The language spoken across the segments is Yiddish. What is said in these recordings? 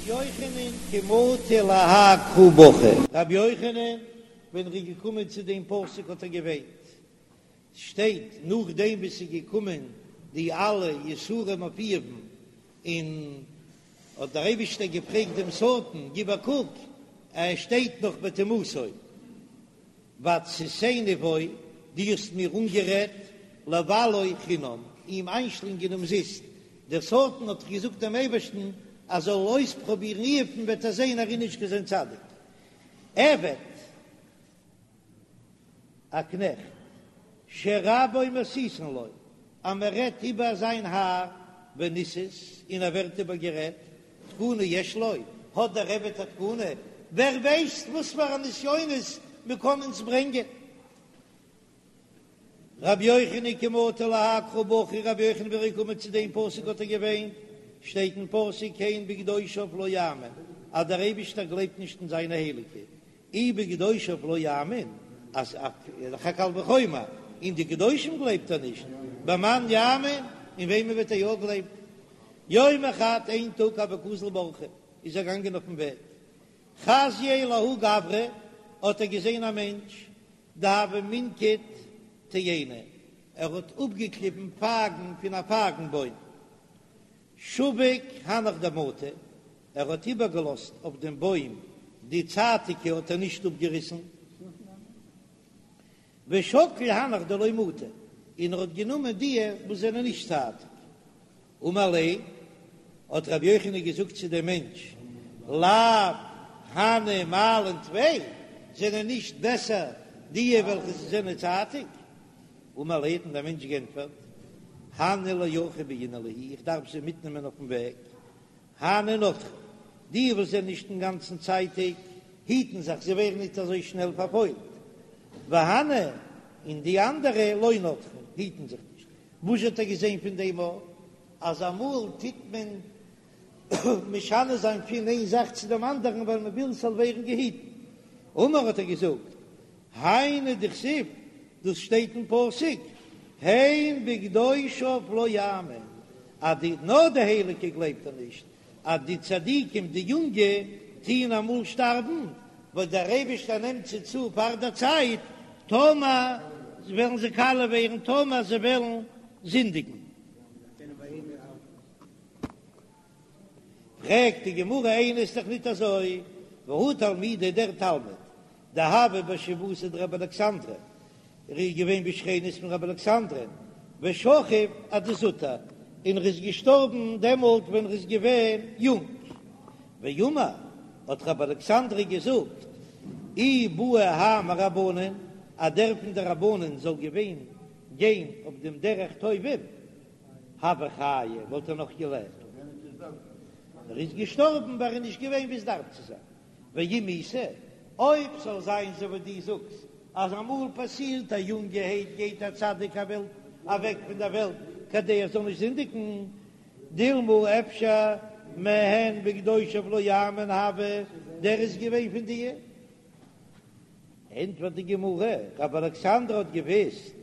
יוחנן כי מטא להאי קרא בכי. רבי יוחנן ווען ער איז געקומען צו דעם פסוק האט ער געוויינט, שטייט נאכדעם ווי ס'איז געקומען די אלע יסורים אויף איוב'ן, און האט דער אייבישטער געפרעגט דעם שטן, גיב א קוק, ער שטייט נאך בטומאתו, והציתני בו, דו האסט מיר אנגערעדט, לבלעו חינם, אים איינשלינגען אומזיסט, דער שטן האט געזאגט דעם אייבערשטן אז זאל אויספרובירן איוב'ן וועט ער זען ער איז נישט קיין צדיק. עבד, א קנעכט, שרבו מסיתין לו, אז מען רעדט איבער זיין האר, וניסת, און ער ווערט איבערגערעדט, תקנה יש לו, האט דער עבד א תקנה, ווער ווייסט וואס פאר א נסיונות מען קען אונז ברענגען. רבי יוחנן כי מטא להאי קרא בכי, רבי יוחנן ווען ער איז געקומען צו דעם פסוק האט ער געוויינט, שטייט אין פסוק הן בקדושיו לא יאמין, אז דער אייבישטער גלייבט נישט אין זיינע הייליגע, אי בקדושיו לא יאמין, אז דאך א קל וחומר, אין די קדושים גלייבט ער נישט, במאן יאמין, אין וועמען וועט ער יא גלייבן? יומא חד, איין טאג הוה קאזיל באורחא, איז ער געגאנגען אויפן וועג, חזייה לההוא גברא, האט ער געזען א מענטש, דהוה מנקיט תאיני, ער האט אפגעקליבן פייגן פון א פייגן בוים, שביק הנך דמטו, ער האט איבערגעלאזט אויף דעם בוים די צייטיקע האט ער נישט אפגעריסן, ושקיל הנך דלא מטו, און ער האט גענומען די וואס זענען נישט צייטיג. אמר ליה, האט רבי יוחנן געזאגט צו דעם מענטש, לאו הני מעלן טפי, זענען נישט בעסער די וועלכע זענען צייטיג? אמר ליה, האט אים דער מענטש גענטפערט, הני לאורחא בעינא להו, איך דארף זיי מיטנעמען אויפן וועג, הני נטרי, די וואס זענען נישט אינגאנצן צייטיג, היטן זיך, זיי ווערן ניט אזוי שנעל פארפוילט, והני, און די אנדערע, לא נטרי, היטן זיך נישט. וואס האט ער געזען פון דעם א, אז אמאל טוט מען משנה זיין פון איין זאך צו דעם אנדערן ווייל מען וויל ס'זאל ווערן געהיטן. אמר האט ער געזאגט, היינו דכתיב, דאס שטייט אין פסוק, הן בקדושיו לא יאמין, אז די נאר די הייליגע גלייבט ער נישט, אז די צדיקים די יונגע טוען אמאל שטארבן, ווייל דער אייבערשטער נעמט זיי צו פאר דער צייט, טאמער וועלן זיי קאליע ווערן, טאמער זיי וועלן זינדיגן. פרעגט די גמרא איני ס'איז דאך ניט אזוי, והא תלמידא דער תלמיד דהוה בשיבבותיה דרבי אלכסנדרי, ער איז געווען בשכנות פון רבי אלכסנדר'ן, ושכיב אדזוטר, און ער איז געשטארבן דעמאלט ווען ער איז געווען יונג. ואמר, האט רבי אלכסנדרי געזאגט, אי בעי האי מרבנן, אז דער פון די רבנן זאל געווען גיין אויף דעם דרך טובים, הוה חיי, וואלט ער נאך געלעבט. ער איז געשטארבן ווייל ער איז נישט געווען ווי עס דארף צו זיין. ואם איתא, אויב ס'זאל זיין אזוי ווי דו זאגסט אז אמאל פאסירט א יונגערהייט גייט א צדיק א וועלט אוועק פון דער וועלט כדי ער זאל נישט זינדיגן, דילמא אפשר מהן בקדושיו לא יאמין הוה, דער איז געווען פון די. ענטפערט די גמרא, רבי אלכסנדר האט געוויסט,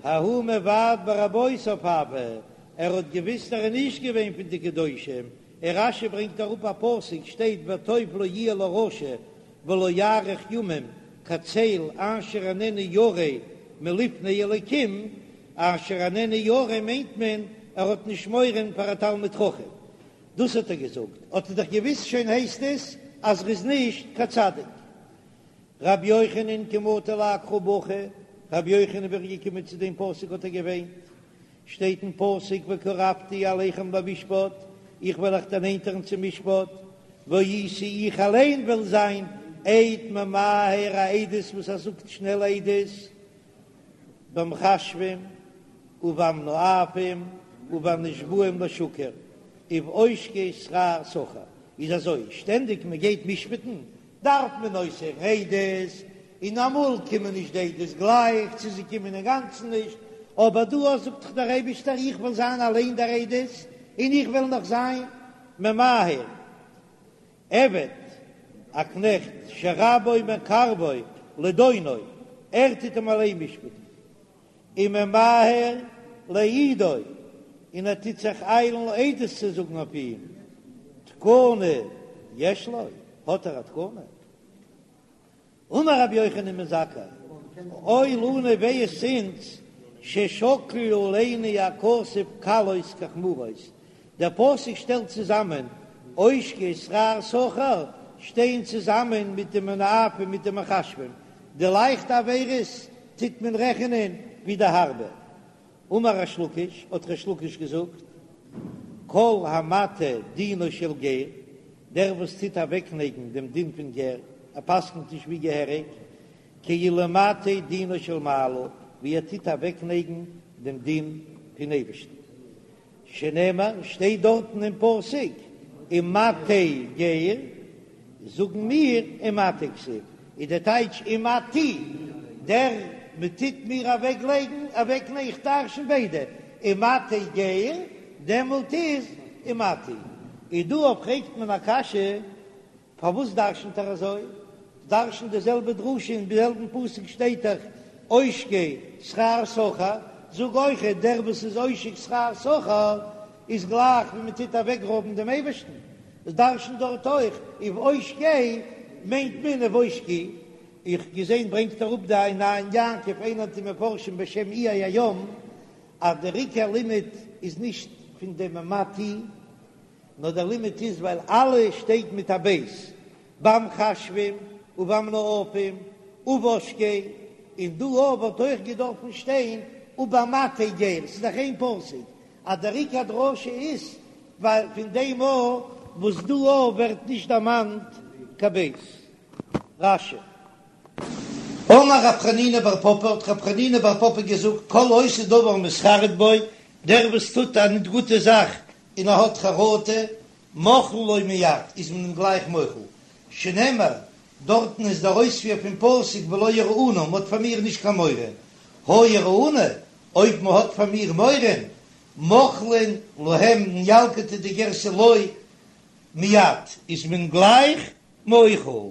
ההוא מבעט ברבותיו הוה, ער האט געוויסט ער איז נישט געווען פון די קדושים, און רש"י ברענגט אראפ א פסוק שטייט וטוב לא יהיה לרשע ולא יאריך ימים כצל אשר איננו ירא מלפני אלקים, אשר איננו ירא מיינט מען ער האט נישט מורא פאר א תלמיד חכם, דאס האט ער געזאגט, האט ער דאך געוויסט שוין הייסט עס אז ער איז נישט קיין צדיק. רבי יוחנן כי מטא להאי קרא בכי, רבי יוחנן ווען ער איז געקומען צו דעם פסוק האט ער געוויינט, שטייט אין פסוק וקרבתי אליכם למשפט, איך וועל אייך דערנענטערן צום משפט, והייתי איך אליין וועל זיין עד ממהר א עדות וואס ער זאגט שנעל עדות, במכשפים ובמנאפים ובנשבעים לשקר ובעושקי שכר שכיר, איז אזוי, שטענדיג מען גייט משפט'ן דארף מען אויסהערן עדות, און אמאל קומען נישט די עדות גלייך, צו זיי קומען אינגאנצן נישט, אבער דא זאגט דאך דער אייבישטער איך וועל זיין אליין דער עדות, און איך וועל נאך זיין ממהר. עבד, א קנעכט, שרבו מקרבו לדונו, ער טוט אים אליין משפט'ן, וממהר להעידו, און ער טוט זיך איילן עדות צו זאגן אויף אים. תקנה יש לו, האט ער א תקנה? אמר רבי יוחנן בן זכאי, אוי לנו וויי איז אונז ששקל עלינו הכתוב קלות כחמורות, דער פסוק שטעלט צוזאמען עושקי שכר שכיר שטייען צוזאמען מיט די מנאפים מיט די מכשפים, די לייכטע עבירות טוט מען רעכענען ווי די הארבע. אמר ריש לקיש, האט ריש לקיש געזאגט, כל המטה דינו של גר, דער וואס טוט אוועקנייגן דעם דין פון גר, ער פסק'נט נישט ווי געהעריג, כאילו מטה דינו של מעלה, ווי ער טוט אוועקנייגן דעם דין פון אייבערשטן. שנאמר, שטייט דארטן אין פסוק, ומטה גר, זאגן מיר ומטה כתיב, איז דער טייטש ומטי, דער מען טוט מיר אוועק לייגן, אוועק נייגן, איך דרשן ביידע, ומטה גר, דעמאלט איז ומטי. איז דא אויף פרעגט מען א קשיא, פארוואס דרשנ'ט ער אזוי? דרש'נט די זעלבע דרשה אין זעלבן פסוק שטייט דאך עושקי שכר שכיר, זאג אויכעט דער וואס איז עושק שכר שכיר איז גלייך ווי מען טוט אוועקרויבן דעם אייבערשטן, דרש'נט דארט אויך ובעושקי מיינט מען ובעושקי, איך געזען ברענגט אראפ די עין יעקב איינער פון די מפרשים בשם איי הים אז דער עיקר לימוד איז נישט פון דעם ומטי נאר דער לימוד איז ווייל אלע שטייט מיט א בית במכשפים ובמנאפים ובעושקי, און דא אויף וואלט אויך געדארפן שטיין ובמטה גר, ס'איז דאך איין פסוק, אז דער עיקר דרשה איז ווייל פון דעם א וואס דא אויף ווערט נישט דערמאנט קיין בית. רש"י. אמר רב חנינא בר פפא, האט רב חנינא בר פפא געזאגט, כל העושה דבר ומתחרט בו, דער וואס טוט א ניט גוטע זאך און ער האט חרטה, מוחלין לו מיד, איז מען אים גלייך מוחל, שנאמר, דארטן איז דער אויספיר פון פסוק ולא יראוני, מען האט פאר מיר נישט קיין מורא, הא יראוני, אויב מען האט פאר מיר מורא, מוחלין להם אין ילקוט איז די גירסא לו מיד, איז מען גלייך מוחל.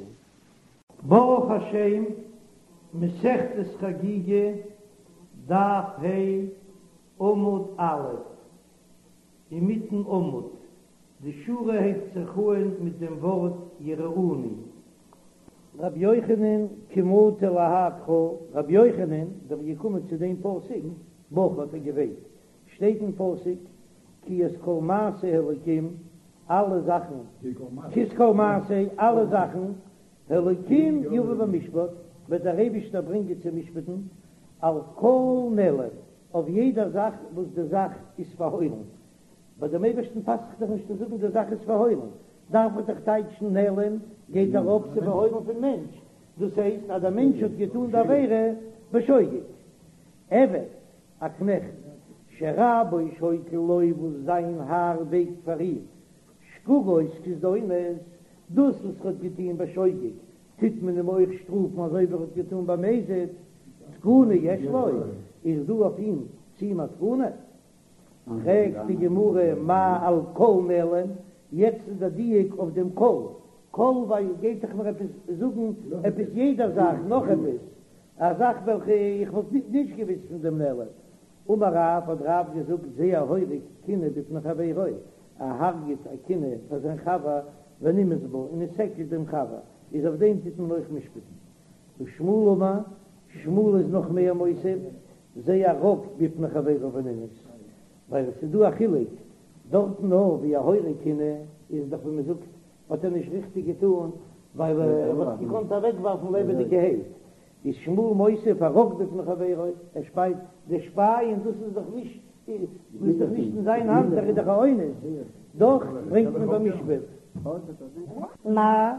ברוך השם, מסכת חגיגה, דף ה', עמוד א', אינמיטן עמוד, די שורה הייבט זיך אהן מיט דעם ווארט יראוני. רבי יוחנן כי מטי להאי קרא, רבי יוחנן ווען ער איז געקומען צו דעם פסוק, בכה האט ער געוויינט, שטייט אין פסוק כי את כל מעשה האלקים, אלע זאכן, כי את כל מעשה, אלע זאכן, האלקים יבא במשפט, וועט דער אייבישטער ברענגען צו משפטן, על כל נעלם, אויף יעדע זאך וואס די זאך איז פארהוילן. ביי דעם אייבערשטן פאסט זיך דאך נישט צו זאגן די זאך איז פארהוילן, דארף מען דאך טייטשן נעלם גייט ארויף צו פארהוילן פון מענטש, דאס הייסט אז דער מענטש האט געטאן די עבירה בשוגג. עבד, א קנעכט, שרבו שוקל לו וואס זיין האר וועגט פאר אים, שגגות כזדונות, דאס וואס ער האט געטון בשוגג טוט מען אים אויך שטראפן אזוי ווי ער האט געטון במזיד, תקנה יש לו, איז דא אויף אים צו אים א תקנה? פרעגט די גמרא מאי על כל נעלם, יעצט איז דער דיוק אויף דעם כל, כל ווייל גייט דאך מיר עפעס זאגן עפעס יעדע זאך נאך עפעס, א זאך וועלכע איך וואלט נישט געוויסט פון דעם נעלם. אמר רב, האט רב געזאגט זה ההורג כינה בפני חברו, ער הרג'ט א כינה פאר זיין חבר ונמאס בה און עס עקלט דעם חבר, איז אויף דעם טוט מען אויך משפטן. ושמואל אמר, שמואל איז נאך מער מוסיף, זה הרק בפני חברו ונמאס, ווייל עס איז דא א חילוק, דארטן נאר ווי א הורג כינה איז דאך ווי מען זאגט האט ער נישט ריכטיג געטאן, ווייל ער וואלט געקאנט אוועקווארפן לעבעדיגערהייט, איז שמואל מוסיף הרק בפני חברו, ער שפייט, די שפייען דאס איז דאך נישט, דאס איז דאך נישט אין זיין האנט, ער איז דאך א אונס, דאך ברענגט מען במשפט. מאי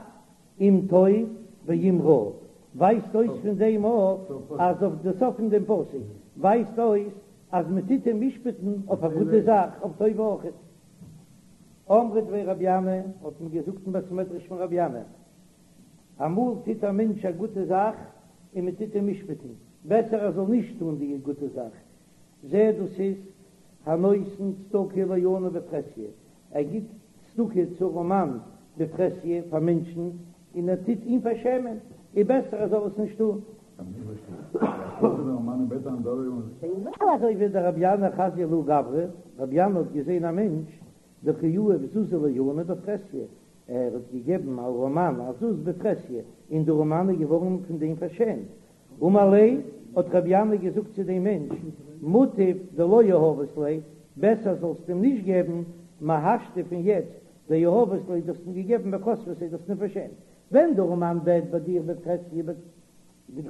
אם טוב ואם רע, ווייזט אויס פון דעם אויף אז אויף די סוף פון דעם פסוק ווייזט אויס אז מען טוט אים משפט'ן אויף א גוטע זאך, אויף טובה אויכעט. אמרי דבי רבי ינאי, האט מען געזאגט אין בית מדרש פון רבי ינאי, אמאל טוט א מענטש א גוטע זאך און מען טוט אים משפט'ן, בעסער ער זאל נישט טון די גוטע זאך, זה דאס איז הנותן צדקה לעני בפרהסיא, ער גיט צדקה צו ארעמאן בפרהסיא פאר מענטשן און ער טוט אים פארשעמען, איז בעסער ער זאל עס נישט טון. אזוי ווי דרבי ינאי חזייה לההוא גברא, רבי ינאי האט געזען א מענטש. דקא יהיב זוזא לעני בפרהסיא, ער האט געגעבן א ארעמאן א זוז בפרהסיא, און דער ארעמאן איז געווארן פון דעם פארשעמט. אמר ליה, האט רבי ינאי געזאגט צו דעם מענטש, מוטב דלא יהבת ליה, בעסער זאלסט אים נישט געבן, מהשתא פון יעצט, דיהבת ליה, דו האסט אים געגעבן וכספתיה, דו האסט אים פארשעמט. ווען דער ארעמאן בעט ביי דיר בפרהסיא,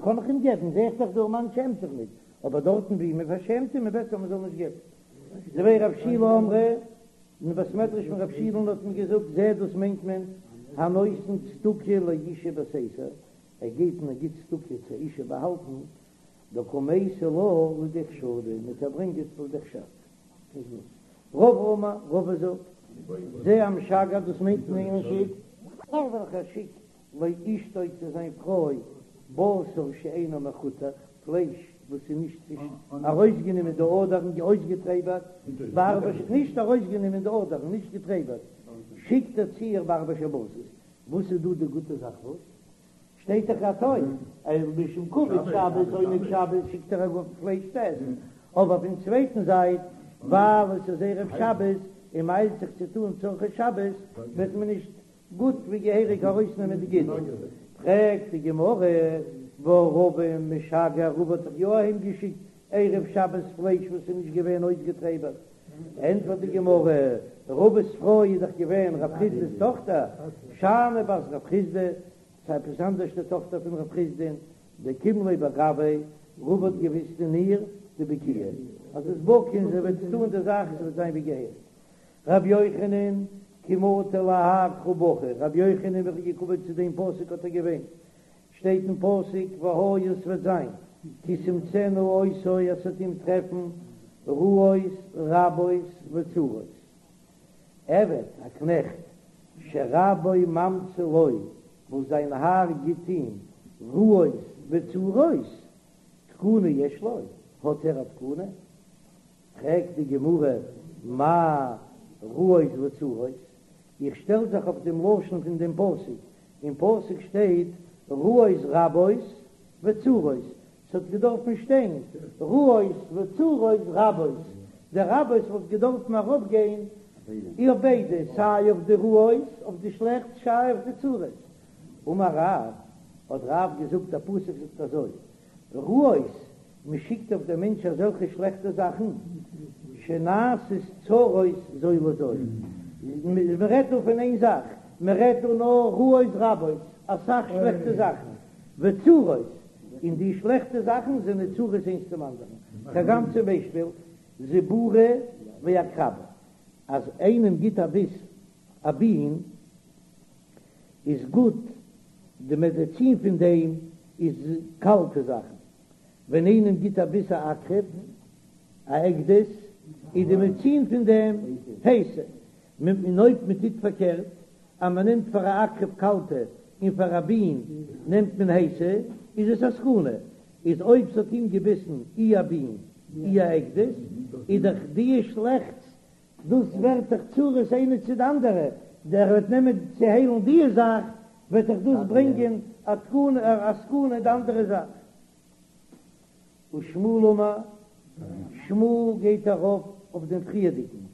קען איך אים געבן, זע איך דאך דער ארעמאן שעמט זיך ניט, אבער דארטן וואו מען פארשעמט אים איז בעסער מען זאל נישט געבן. דבי רב שילא אמרי, אין בית מדרש פון רב שילא'ן האט מען געזאגט, זה דאס מיינט מען, הנותן צדקה לאשה בסתר, ער גייט און ער גיט צדקה צו אשה באהאלטן, דקא מייתי לה לידי חשדא, מיט ער ברענגט עס לידי חשד. רבא אמר, רבא זאגט, זה המשגר דאס מיינט מען איינער שיקט. דער וועלכער שיקט לאשתו צו זיין פרוי בשר שאינו מחותך, פלייש וואס איז נישט ארויסגענומען די אדערן אויסגעטרעבערט, בארבע ש, נישט ארויסגענומען די אדערן, נישט געטרעבערט, שיקט ער צו איר בארבע שבתות. וואס איז דא די גוטע זאך וואס שטייט דאך א טוב, אז משום כבוד שבת עונג שבת שיקט ער א גוט פלייש צו עסן, אבער פון צווייטן זייט ווייל עס איז ערב שבת און מ'איילט זיך צו טון צרכי שבת וועט מען נישט גוט ווי געהעריג ארויסנעמען די גידים. פרעגט די גמרא, והא רבא משגר, רבא האט דאך יא אהיים געשיקט ערב שבת פלייש וואס איז נישט געווען אויסגעטרעבערט, ענטפערט די גמרא, רבא'ס פרוי איז דאך געווען רב חסדא'ס טאכטער, שאני בת רב חסדא, ס'איז עפעס אנדערש די טאכטער פון רב חסדא'ן, דקים ליה בגויה, רבא האט געוויסט אין איר דבקיאה, אז זי איז בקי און זי וועט טון די זאך, עס וועט זיין ווי געהעריג. רבי יוחנן, כי מטי להאי קרא בכי, רבי יוחנן ווען ער איז געקומען צו דעם פסוק האט ער געוויינט, שטייט אין פסוק והיה ס'וועט זיין כי תמצאנה אותו אז ס'וועט אים טרעפן רעות רבות וצרות. עבד, א קנעכט, שרבו ממציא לו, וואס זיין האר גיט אים רעות וצרות, תקנה יש לו, האט ער א תקנה? פרעגט די גמרא מאי רעות וצרות, איך שטעל זיך אויף דעם לשון פון דעם פסוק, אין פסוק שטייט רעות רבות וצרות, ס'האט געדארפן שטיין רעות וצרות רבות, די רבות וואלט געדארפן ארויפגיין אויף ביידע, סיי אויף די רעות, אויף די שלעכטס, סיי אויף די צרות. אמר רב, האט רב געזאגט, דער פסוק זאגט אזוי, רעות, מען שיקט אויף דעם מענטש אזעלכע שלעכטע זאכן, שנעשות צרות זו לזו, מען רעדט דא פון איין זאך, מען רעדט דא נאר רעות רבות, אסאך שלעכטע זאכן, וצרות, און די שלעכטע זאכן זענען צרות איינס צום אנדערן, כגון צום ביישפיל, זיבורא ועקרבא, אז איינעם גיט א ביס א בין, איז גוט, די מעדעצין פון דעם איז קאלטע זאכן, ווען איינעם גיט א ביס א עקרב, א עקדיש, איז די מעדעצין פון דעם הייסע, און אויב מען טוט פארקערט, אז מען נעמט פאר א עקרב קאלטע און פאר א בין נעמט מען הייסע, איז עס א סכנה, איז אויב ס'האט אים געביסן אי א בין אי א עקדיש, איז דאך די שלעכטס דאס ווערט דאך צרות איינע צו די אנדערע, דער וועט נעמען צו היילן די זאך, וועט דאך דאס ברענגען א תקנה א סכנה די אנדערע זאך. ושמואל אמר, שמואל גייט ארויף אויף דעם פריערדיגן,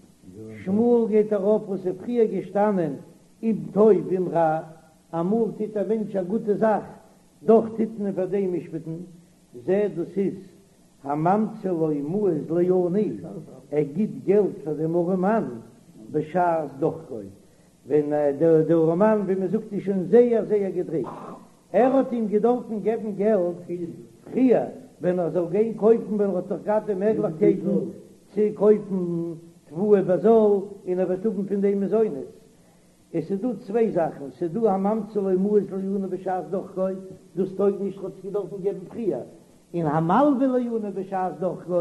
שמואל גייט ארויף וואס איז פריער געשטאנען אם טוב אם רע, אמאל טוט א מענטש א גוטע זאך, דאך טוט מען פאר דעם משפט'ן, זה דאס איז הממציא לו מעות לעני, ער גיט געלט פאר דעם ארעמאן בשעת דחקו, ווען דער ארעמאן ווי מען זאגט איז שוין זייער זייער געדריקט, ער האט אים געדארפן געבן געלט פריער ווען ער זאל גיין קויפן ווען ער האט נאך געהאט די מעגליכקייטן צו קויפן תבואה בזול און ער וועט האבן פון דעם מזונות, עס איז דא צוויי זאכן, ס'איז דא הממציא לו מעות לעני בשעת דחקו, דאס טויג נישט, האט עס געדארפן געבן פריער, און המלווה לעני בשעת דחקו,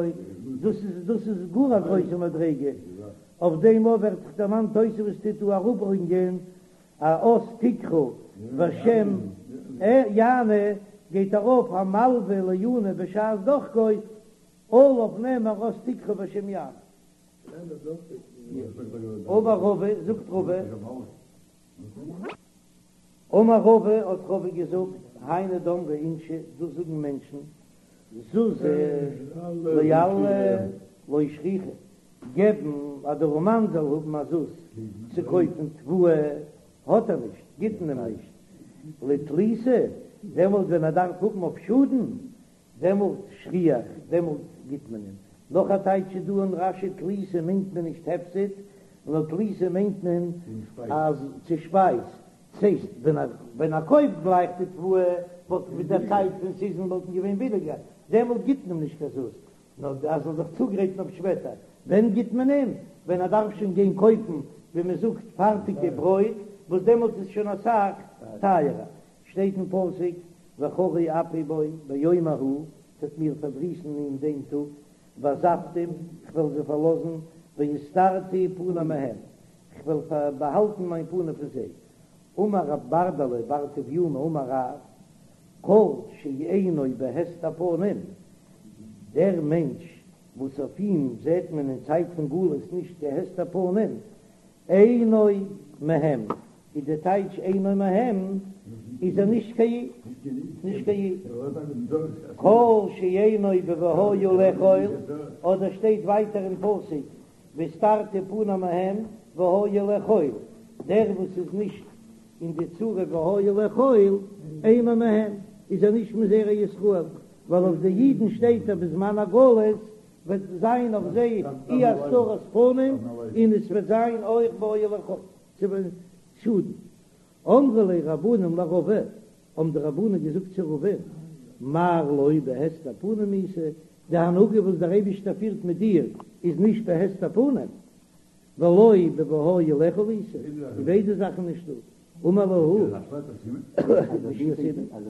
דאס איז דאס איז גאר א גרויסע מדריגה, אויף דעם אויך ווערט זיך דערמאנט תוספות טוט דא אראפברענגען א אז תקרא והשם יענה, גייט ארויף המלווה לעני בשעת דחקו, עליו נאמר אז תקרא והשם יענה. אמר רבא, זאגט רבא, אמר רבא, האט רבא געזאגט, היינו דאמרי אינשי, דאס זאגן מענטשן, זוזא לאללא לא שכיחא. געבן אז דער ארעמאן זאל האבן א זוז צו קויפן תבואה, האט ער נישט, גיט מען אים נישט לתליתא, דעמאלט ווען ער דארף האבן אויף שאדן, דעמאלט שכיח, דעמאלט גיט מען אים. נאך א טייטש איז דא אין רש"י תליתא מיינט מען נישט הפסד, נאר תליתא מיינט מען אז צו שפייז, ס'הייסט ווען ער ווען ער קויפט גלייך די תבואה וואלט מיט דער צייט פון סיזען וואלטן געווען ביליגער, דעמאלט גיט מען אים נישט קיין זוז, נאר ער זאל זיך צוגרייטן אויף שפעטער. ווען גיט מען אים? ווען ער דארף שוין גיין קויפן ווי מען זאגט פארטיגע ברויט, וואס דעמאלט איז שוין אסאך טייערער. שטייט אין פסוק וחרה אפי בו ביום ההוא, ס'וועט מיר פארדריסן אין דעם טאג, ועזבתים, כ'וועל זיי פארלאזן, והסתרתי פני מהם, כ'וועל באהאלטן מיין פנים פון זיי. אמר רב ברדלא בר טביומי אמר רב, כל שאינו בהסתר פנים, דער מענטש וואס אויף אים זעט מען אין צייט פון גלות נישט קיין הסתר פנים, אינו מהם, איז די טייטש אינו מהם איז ער נישט קיין איד, נישט קיין איד. כל שאינו בוהיה לאכול, אדער שטייט ווייטער אין פסוק והסתרתי פני מהם והיה לאכול, דער וואס איז נישט אין די צרה והיה לאכול אינו מהם, איז ער נישט מזרע ישראל, ווייל אויף די אידן שטייט אז בזמן הגלות וועט זיין אויף זיי אי הסתרת פנים און עס וועט זיין אויך והיה לאכול צו שאדן. אמרו ליה רבנן לרבא, האבן די רבנן געזאגט צו רבא, מר לא בהסתר פנים איתא, די הנהגה וואס דער אייבישטער פירט מיט דיר איז נישט בהסתר פנים, ולא בוהיה לאכול איתא, די ביידע זאכן נישטא. אמר להו,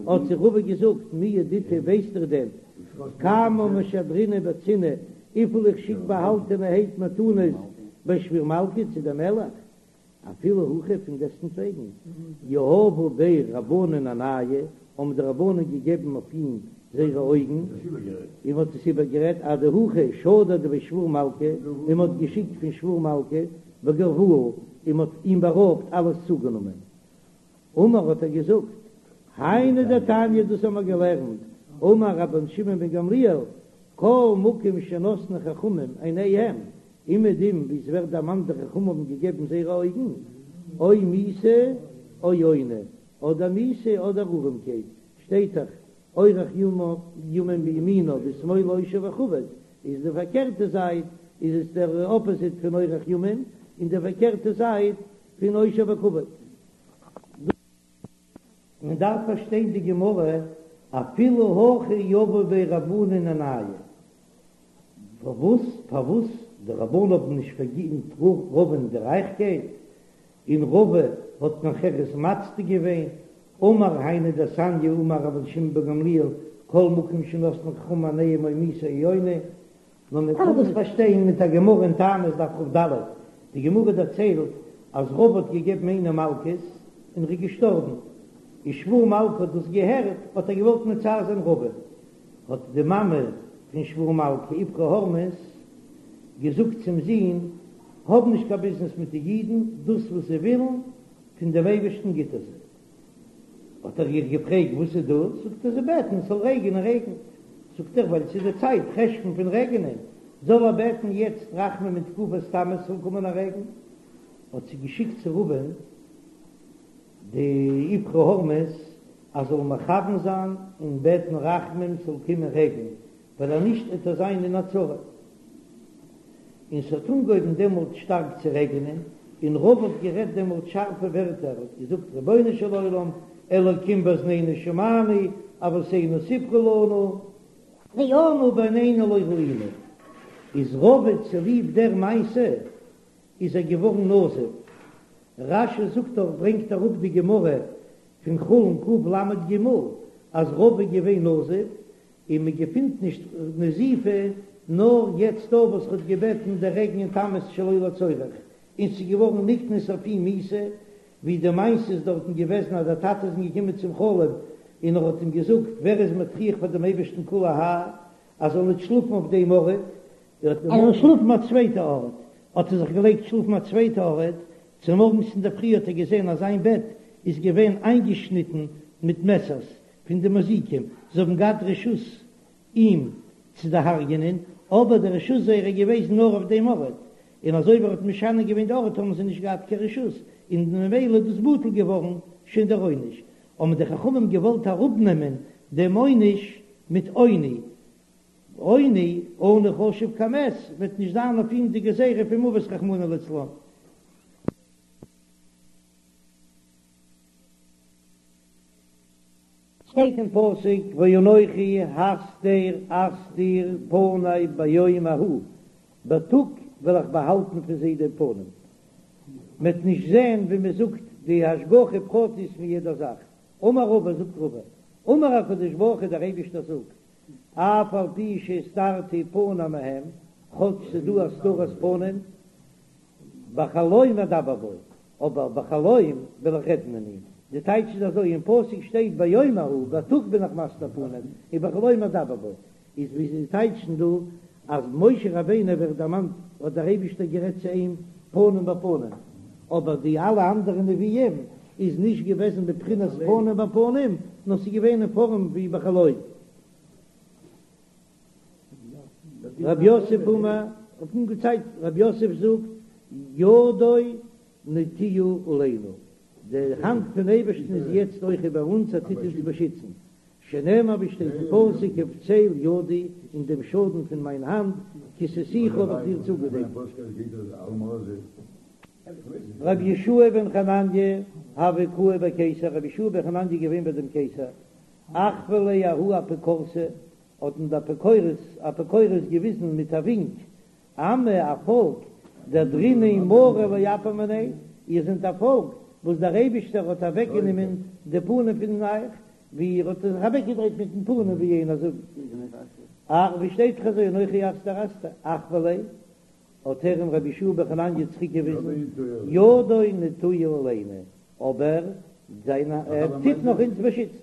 האט זיי רבא געזאגט, מי ידעיתו ווייסט איר דען, כמה משדרנא בצנעא, וויפיל איך שיק באהאלטענערהייט מתנות בי שבור מלכא צו דעם מלך, אפילו הכי פון דעסטנטוועגן, יהבו ביה רבנן עינייהו, האבן די רבנן געגעבן אויף אים זייערע אויגן, און מען האט עס איבערגערעדט אדהכי שדר דבי שבור מלכא, און מען האט געשיקט פון שבור מלכא וגרבוה, און מען האט אים בארויבט אלעס צוגענומען. אמר האט ער געזאגט, היינו דתניא דאס האבן מיר געלערנט, אמר רבן שמעון בן גמליאל, כל מקום שנתנו חכמים עיניהם, אומעדום ווי עס ווערט דערמאנט די חכמים האבן געגעבן זייערע אויגן, או מיתה או עוני, אדער מיתה אדער ארעמקייט, שטייט דאך, אורך ימים בימינו בשמאלו עושר וכבוד, איז די פארקערטע זייט איז עס דער אפאזיט פון אורך ימים, און די פארקערטע זייט פון עושר וכבוד. מען דארף פארשטיין די גמרא, אפילו הכי יהבו ביה רבנן עינייהו, פארוואס פארוואס די רבנן האבן נישט פארגינט רבא'ן די רייכקייט, און רבא האט נאכהער עס מצדיק געווען, אמר היינו דתניא אמר רבן שמעון בן גמליאל כל מקום שנתנו חכמים עיניהם או מיתה או עוני, נאר מען קען דאס פארשטיין מיט א גמרא אין תענית דף כ"ד, די גמרא דערציילט אז רבא האט געגעבן איינעם מלקות און ער איז געשטארבן, און שבור מלכא האט דאס געהערט האט ער געוואלט מצער זיין רבא, האט די מאמע פון שבור מלכא איפכא הורמיז געזאגט צום זון, האב נישט קיין ביזנעס מיט די אידן, דאס וואס זיי ווילן פון דעם אייבערשטן גיט ער זיי. האט ער איר געפרעגט וואס איז דאס, זאגט ער זיי בעטן עס זאל רעגענען רעגנט, זאגט ער ווייל ס'איז די צייט חשון פון רעגענען, זאל ער בעטן יעצט רחמים אין תקופת תמוז זאל קומען א רעגן, האט זי געשיקט צו רבא'ן די איפכא הורמיז אז זאל מכוון זיין און בעטן רחמים ס'זאל קומען רעגן, ווייל אז נישט וועט ער זיין אין א צרה. און ס'האט אנגעהויבן דעמאלט שטארק צו רעגענען, און רבא האט גערעדט דעמאלט שארפע ווערטער, האט געזאגט רבונו של עולם, אלוקים באזנינו שמענו, אבותינו סיפרו לנו, ואנו בעינינו לא ראינו, איז רבא צוליב דער מעשה איז ער געווארן נזוף, רש"י זאגט דאך ברענגט אראפ די גמרא פון חולין קל"ג אז רבא איז געווען נזוף, און מען געפינט נישט נזיפה נאר יעצט דא וואס ר'האט געבעטן די רעגן אין תמוז שלא לצורך, און ס'איז געווארן נקנס אויף אים מיתה, ווי די מעשה איז דארטן געוועזן אז דער טאטע איז אים געקומען צום חלום און ער האט אים געזאגט ווער איז מטריח פאר דעם אייבערשטן כולי האי אז זאל ניט שלאפן אויף דעם ארט, ער זאל שלאפן א צווייטע ארט, האט ער זיך געלייגט שלאפן א צווייטע ארט, צומארגנס אינדערפרי האט ער געזען אז זיין בעט איז געווען איינגעשניטן מיט מעסערס פון די מזיקים, זיי האבן געהאט רשות אים צו דערהרגענען, אבער די רשות זייערע איז געוועזן נאר אויף דעם ארט. און אזוי ווי ער האט משנה געווען די ארט האבן זיי נישט געהאט קיין רשות, און ממילא איז דאס בטל געווארן שוין דער עונש, האבן די חכמים געוואלט אראפנעמען דעם עונש מיט עוני, עוני, עני חשוב כמת, וועט נישט זיין אויף אים די גזירה פון מוות רחמנא לצלן. שטייט אין פסוק ואנכי הסתר אסתיר פני ביום ההוא, בייטאג וועל איך באהאלטן פון זיי דעם פנים, מ'וועט נישט זען ווי מ'זאגט די השגחה פרטית פון יעדע זאך, אמר רבא זאגט רבא, אמר הקדוש ברוך הוא דער אייבישטער זאגט, אף על פי שהסתרתי פני מהם, כאטש ס'דא הסתרת פנים, בחלום אדבר בו, אבער בחלום וועל איך רעדן אין אים. די טייטש איז אזוי, אין פסוק שטייט ביום ההוא, בייטאג בין איך מסתיר פנים, און בחלום אדבר בו. איז ווי זיי טייטשן דא, אז משה רבינו ווערט דערמאנט האט דער אייבישטער גערעדט צו אים פנים בפנים, אבער די אלע אנדערע נביאים איז נישט געוועזן בבחינת פנים בפנים, נאר ס'איז געווען אין פארעם ווי בחלום. רב יוסף אמר, האט אנגעצייגט, רב יוסף זאגט, ידו נטויה עלינו, די האנט פון אייבערשטן איז יעצט אויך איבער אונז, ער טוט אונז באשיצן, שנאמר ווי שטייט אין פסוק ובצל ידי, אין דעם שאטן פון מיין האנט, כסיתיך האב איך דיר צוגעדעקט. רבי יהושע בן חנניה הוה קאי בי קיסר, רבי יהושע בן חנניה איז געווען ביי דעם קיסר, אחוי ליה ההוא אפיקורסא, האט אים דער אפיקורס אפיקורס געוויזן מיט א ווינק, עמא א פאלק, דאהדרינהו מריה לאפיה מיניה, איר זענט א פאלק וואס דער אייבישטער האט אוועקגענומען די פנים פון אייך, ווי איר האט זיך אוועקגעדרייט מיטן פנים ווי יענער זאגט, אך ווי שטייט דאך אזוי אנכי הסתר אסתיר, אחוי ליה, האט ער אים רבי יהושע בן חנניה צוריק געוויזן, ידו נטויה עלינו, אבער זיין ער טוט נאך אונז באשיצן.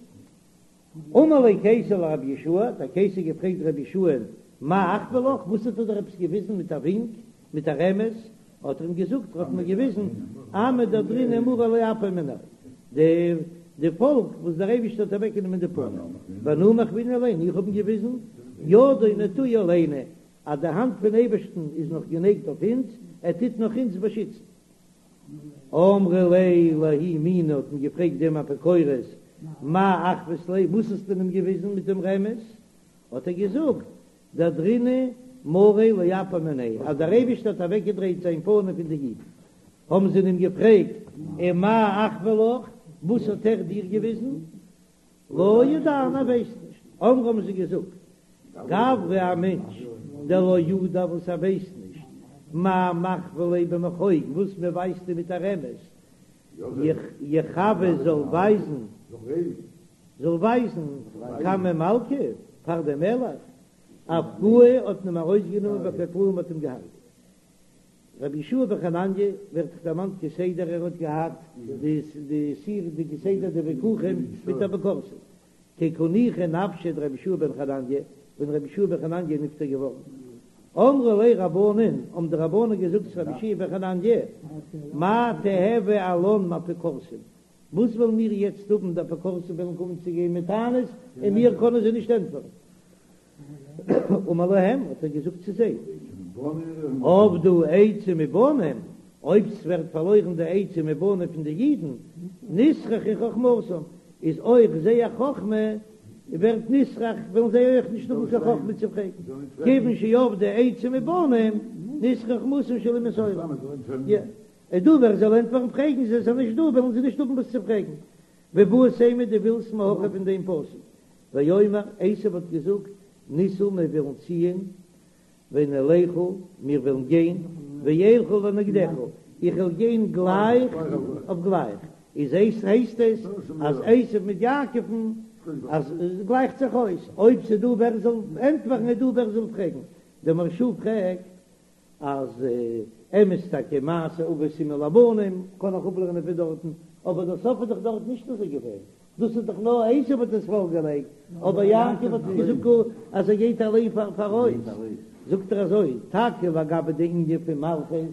אמר ליה קיסר לרבי יהושע, האט דער קיסר געפרעגט רבי יהושע'ן, מאי אחוי לך, וואס האט ער דיר עפעס געוויזן מיט א ווינק, מיט א רמז, האט ער אים געזאגט, ער האט מיר געוויזן, עמא דאהדרינהו מריה לאפיה מיניה, די די פאלק וואס דער אייבערשטער האט אוועקגענומען די פנים, ואנא מחוינא ליה, איך האב אים געוויזן, ידו נטויה עלינו, אז די האנט פון אייבערשטן איז נאך גענייגט אויף אונז, ער טוט נאך אונז באשיצן. אמרי ליה לההוא מינא האט מען געפרעגט דעם אפיקורס מאי אחוית ליה וואס האסטו אים געוויזן מיט דעם רמז, האט ער געזאגט דאהדרינהו מריה לאפיה מיניה אז דער אייבערשטער האט אוועקגעדרייט זיין פנים פון די אידן, האבן זיי אים געפרעגט ומאי אחוי לך וואס האט ער דיר געוויזן, לא ידענא ער ווייסט נישט, אמרי האבן זיי געזאגט, גברא א מענטש דלא ידע וואס ער ווייסט נישט, מאי מחוו ליה במחוג וואס מען ווייזט אים מיט א רמז, יחוי זאל ווייזן, זאל ווייזן קמי מלכא פאר דעם מלך, אפקוהו האט מען אים ארויסגענומען וקטלוהו מ'האט אים געהארגעט. רבי יהושע בן חנניה ווערט דאך דערמאנט כסדר ער האט געהאט די די סיר די כסדר די וויכוחים מיט אפיקורסים כי קא ניחא נפשיה דרבי יהושע בן חנניה ווען רבי יהושע בן חנניה איז נפטר געווארן אמרו ליה רבנן האבן די רבנן געזאגט צו רבי יהושע בן חנניה מאי תיהוי עלן מאפיקורסים וואס וועלן מיר יעצט האבן די אפיקורסים וועלן קומען צו גיין מיט טענות און מיר קענען זיי נישט ענטפערן. אמר להם, האט ער געזאגט צו זיי, אבדה עצה מבנים, אויב ס'ווערט פארלוירן די עצה מבנים פון די אידן, נסרחה חכמתם, איז אויך זייער חכמה ווערט נסרח, וועלן זיי אויך נישט האבן קיין חכמה צו פרעגן, כיוון שאבדה עצה מבנים, נסרחה חכמתן של אומות העולם. איז דא ווער זאל ענטפערן פרעגן זיי, ס'איז נישט דא וועלן זיי נישט האבן וואס צו פרעגן. ואיבעית אימא דו ווילסט מהכא פון דעם פסוק, ויאמר עשו האט געזאגט, נסעה מיר וועלן ציען, ונלכה מיר וועלן גיין, ואלכה לנגדך, איך וועל גיין גלייך אויף גלייך, איז עס הייסט עס אז עשו מיט יעקב'ן אז עס גלייכט זיך אויס, אויב ס'איז דא ווער זאל ענטפערן איז דא ווער זאל פרעגן, דער מהרש"א פרעגט אז אמת טאקע מעשה אבות סימן לבנים קען איך אפלערנען פון דארטן, אבער דער סוף איז דאך דארט נישט אזוי געווען, דאס איז דאך נאר עשו האט עס פארגעלייגט, אבער יעקב האט דאך געזאגט אז ער גייט אליין פאראויס, זאגט ער אזוי, טאקע לגבי די ענין פון מלכות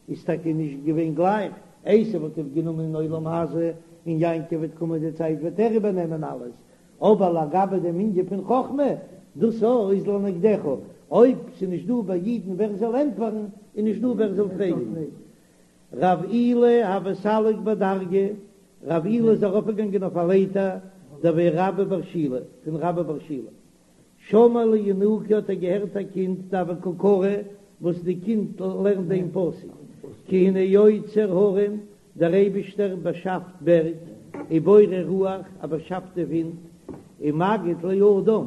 איז טאקע נישט געווען גלייך, עשו האט איבערגענומען אין עולם הזה, און יעקב וועט קומען די צייט וועט ער איבערנעמען אלעס, אבער לגבי דעם ענין פון חכמה, דאס איז לנגדך, אויב ס'איז נישט דא ביי אידן ווער זאל ענטפערן, איז נישט דא ווער זאל פרעגן. רב אילא הוה סליק בדרגא, רב אילא איז ארויפגעגאנגען אויף א לייטער, דבי רבה בר שילא, פון רבה בר שילא. שמע לינוקא האט ער געהערט א קינד דהוה קא קרי וואס די קינד לערנט דעם פסוק כי הנה יוצר הרים דער אייבישטער באשאפט בערג ובורא רוח ער באשאפט די ווינט ומגיד לאדם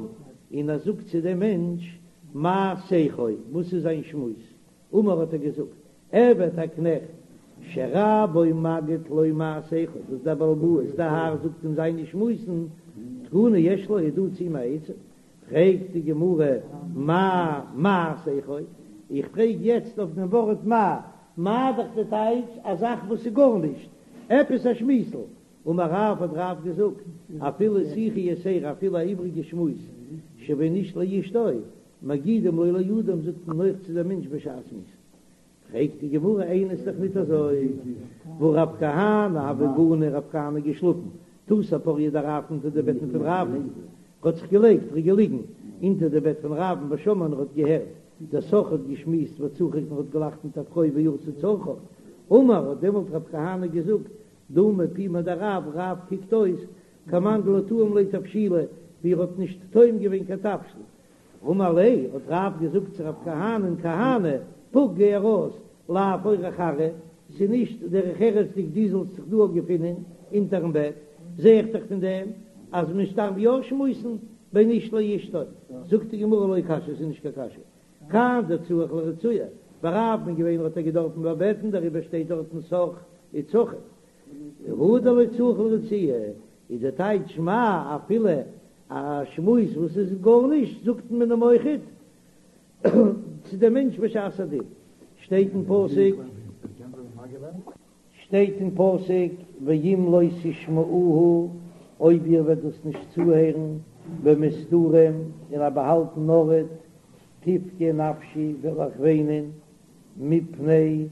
און ער זאגט צו דעם מענטש מה שיחו וואס איז זיין שמועס אמר האט ער געזאגט, עבד א קנעכט, שרבו מגיד לו מה שיחו, וואס דער בעל הבית, דער האר זאגט אים זיינע שמועסן, תקנה יש לו, איז דא צו אים א עצה? פרעגט די גמרא, מאי מה שיחו? איך פרעג יעצט אויף דעם ווארט מה, מה דאך די טייטש א זאך וואס איז גארנישט, עפעס א שמועסל, אמר רב האט רב געזאגט, אפילו שיחה יתירה אפילו א איבריגע שמועס שבין איש לאשתו, מגידים לו לאדם זאגט מען אויך צו דעם מענטש בשעת מיתה. פרעגט די גמרא איני ס'איז דאך ניט אזוי, והא רב כהנא הוה גני רב כהנא געשלאפן תותי פוריא דרב אונטער די בעטן פון רב'ן, ער האט זיך געלייגט ער איז געליגן אונטער די בעט פון רב'ן ושמע און ער האט געהערט דסח האט געשמועסט וצחק און האט געלאכט מיט א פרוי ועשה צרכיו, אמר האט דעמאלט רב כהנא געזאגט דמי פומיה דרב, רב קוקט אויס כמאן דלא טעים ליה תבשילא ווי ער האט נישט טועם געווען קיין תבשיל, אמר ליה, האט רב געזאגט צו רב כהנא'ן, כהנא, פוק גיי ארויס, לאו אורח ארעא, ס'איז נישט דרך ארץ'דיג דו זאלסט זיך דא געפינען אונטערן בעט, זע איך דאך פון דעם אז מען דארף יא שמועסן בין איש לאשתו, זאגט די גמרא לא קשיא, ס'איז נישט קיין קשיא, כאן דצריך לרצויי, ביי רב'ן געווען האט ער געדארפן באבעטן דעריבער שטייט דארטן סח וצחק, הא דלא צריך לרצויי, איז די טייטש מה אפילו א שמועס וואס איז גארנישט זאגט מען אים אויכעט צו דעם מענטש בשעת הדין, שטייט אין פסוק, שטייט אין פסוק ואם לא תשמעוהו אויב איר וועט דאס נישט צוהערן במסתרים אין א באהאלטן ארט, תבכה נפשי וועל איך וויינען מפני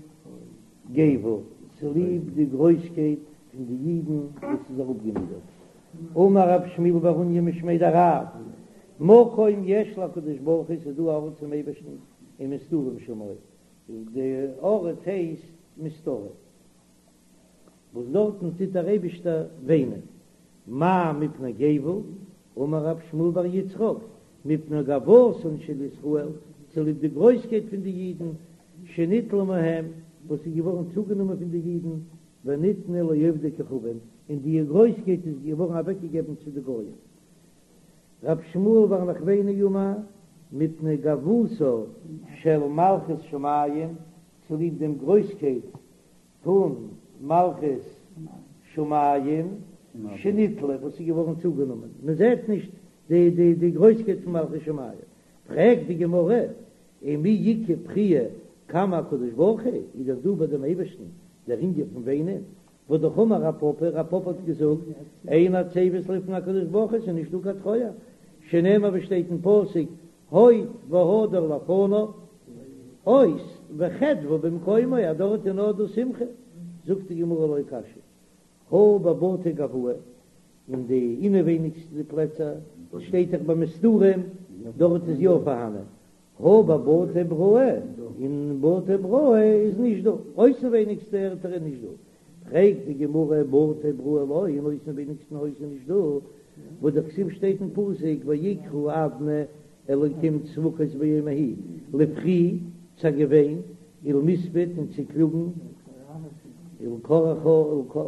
גוה, צוליב די גרויסקייט פון די אידן וואס איז אראפגענידערט. אמר רב שמואל בר אוניא משמיה דרב, מקום יש לקדוש ברוך הוא, ס'איז דא א ארט צום אייבערשטן ומסתרים שמו, די ארט הייסט מסתרים, וואס דארטן טוט דער אייבישטער וויינען, מאי מפני גוה, אמר רב שמואל בר יצחק, מפני גאוותן של ישראל, צוליב די גרויסקייט פון די אידן, שניטלה מהם, וואס איז געווארן צוגענומען פון די אידן, וניתנה לעובדי כוכבים, און די גרויסקייט איז געווארן אוועקגעגעבן צו די גויים. רב שמואל בר נחמני אמר, מפני גאוותה של מלכות שמים, צוליב דעם גרויסקייט פון מלכות שמים שניטלה וואס איז געווארן צוגענומען, מען זעט נישט די די די גרויסקייט פון מלכות שמים, פרעגט די גמרא, ומי איכא בכיה קמי הקדוש ברוך הוא, איז דאך דא ביי דעם אייבערשטן דער ענין פון וויינען, והא דאמר רב פפא, רב פפא האט געזאגט, אין עצבות לפני הקדוש ברוך הוא, ס'איז נישט דא קיין טרויער, שנאמר ווי שטייט אין פסוק, הוד והדר לפניו, עוז וחדוה במקומו, אז דארט איז נאר דא שמחה, זאגט די גמרא לא קשיא, הא בבתי גואי, אין די אינעווייניגסטע פלעצער, שטייט דאך במסתרים, דארט איז יא פארהאנען, הא בבתי בראי, אין בתי בראי איז נישט דא, אויסנווייניגסטע ערטער איז נישט דא, פרעגט די גמרא בתי בראי לא, אין אויסנווייניגסטן הויז איז נישט דא, והא דכתיב שטייט אין פסוק ויקרא אדני אלקים צבקות ביום ההוא, לבכי צו א געוויין, ולמספד און צו קלאגן, ולקרחה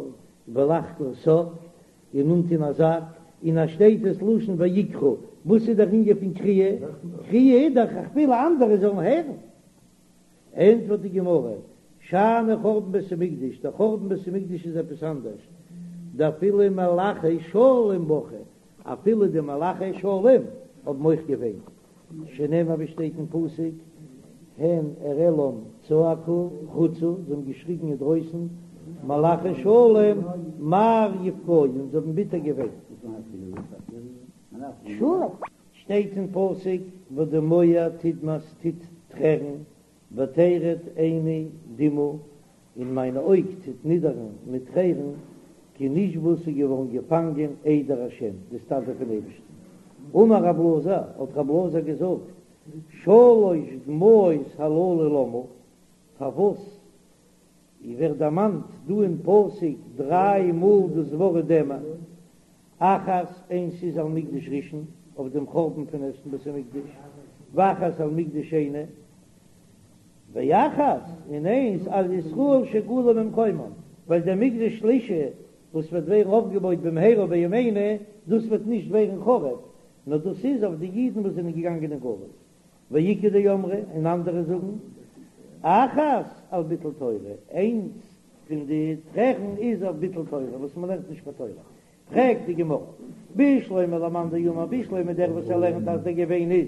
ולחגור שק, און אנטון א זאק, און אז שטייט דאס לשון ויקרא, וואס איז דער ענין פון קריאה? קריאה איז דאך איך וויל אנדערע זאלן הערן. ענטפערט די גמרא, שאני חורבן בית המקדש, דער חורבן בית המקדש איז עפעס אנדערש, דאפילו מלאכי שלום בכו, אפילו די מלאכי שלום האבן אויך געוויינט, שנאמר ווי שטייט אין פסוק, הן אראלם צעקו חוצה, זיי האבן געשריגן אינדרויסן, מלאכי שלום מר יבכיון, זיי האבן ביטער געוויינט. שטייט אין פסוק ודמוע תדמע ס'טוט טרערן, ותרד עיני דמעה, און מיין אויג טוט נידערן מיט טרערן, כי נשבו ס'איז געווארן געפאנגען עדר השם, די סטאדע פון אייבערשטן. אמר רב אלעזר, האט רב אלעזר געזאגט, שלש דמעות הללו למה? פארוואס ווערט דערמאנט דא אין פסוק דריי מאל דאס ווארט דמע? אחת, איינס איז על מקדש ראשון, אויף דעם חורבן פון ערשטן בית המקדש, ואחת על מקדש שני, ואחת, און איינס על ישראל שגלו ממקומם, ווייל דער מקדש שלישי וואס וועט ווערן אויפגעבויט במהרה בימינו, דאס וועט נישט ווערן חרוב, נאר דאס איז אויף די אידן וואס זענען געגאנגען אין גלות. ואיכא דאמרי, און אנדערע זאגן, אחת על ביטול תורה, איינס פון די טרערן איז אויף ביטול תורה, וואס מען לערנט נישט קיין תורה. פרעגט די גמרא, בשלמא למאן דאמר, בשלמא דער וואס ער לערנט אז דער געוויין איז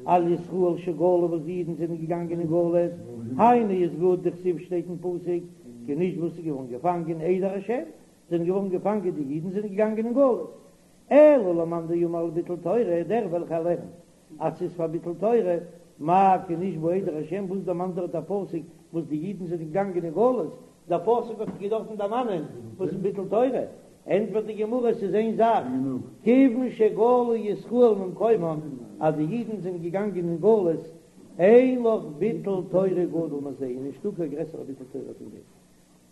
על ישראל שגלו וואס די אידן זענען געגאנגען אין גלות, היינו איז גוט דכתיב שטייט אין פסוק כי נשבו ס'איז געווארן געפאנגען עדר השם, זענען געווארן געפאנגען די אידן זענען געגאנגען אין גלות. אלא למאן דאמר על ביטול תורה, דער וועלכער לערנט אז ס'איז פאר ביטול תורה, מאי כי נשבו עדר השם, וואס דערמאנט דארט דער פסוק וואס די אידן זענען געגאנגען אין גלות, דער פסוק האט געדארפן דערמאנען וואס איז ביטול תורה, ענטפערט די גמרא ס'איז איין זאך, כיוון שגלו ישראל ממקומם, אז די אידן זענען געגאנגען אין גלות, אין לך ביטול תורה גדול מזה, איז נישטא קיין גרעסערע ביטול תורה פון דעם.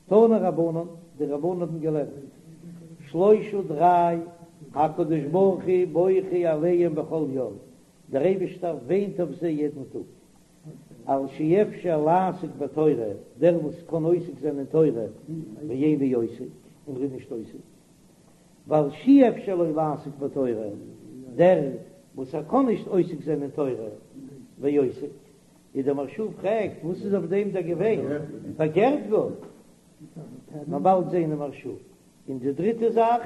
תנו רבנן, די רבנן האבן געלערנט, שלושה דריי, הקדוש ברוך הוא בוכה עליהם בכל יום, דער אייבישטער וויינט אויף זיי יעדן טאג, על שאפשר לעסוק בתורה, דער וואס קען עוסק זיין אין תורה, ואינו עוסק, און ער איז נישט עוסק, ועל שאי אפשר לו לעסוק בתורה, דער וואס ער קען נישט עוסק זיין אין תורה, ועוסק, איז דער מהרש"א פרעגט וואס איז אויף דעם דער געוויין, פארקערט גאר, מ'וועט באלד זעהן אין מהרש"א. און די דריטע זאך,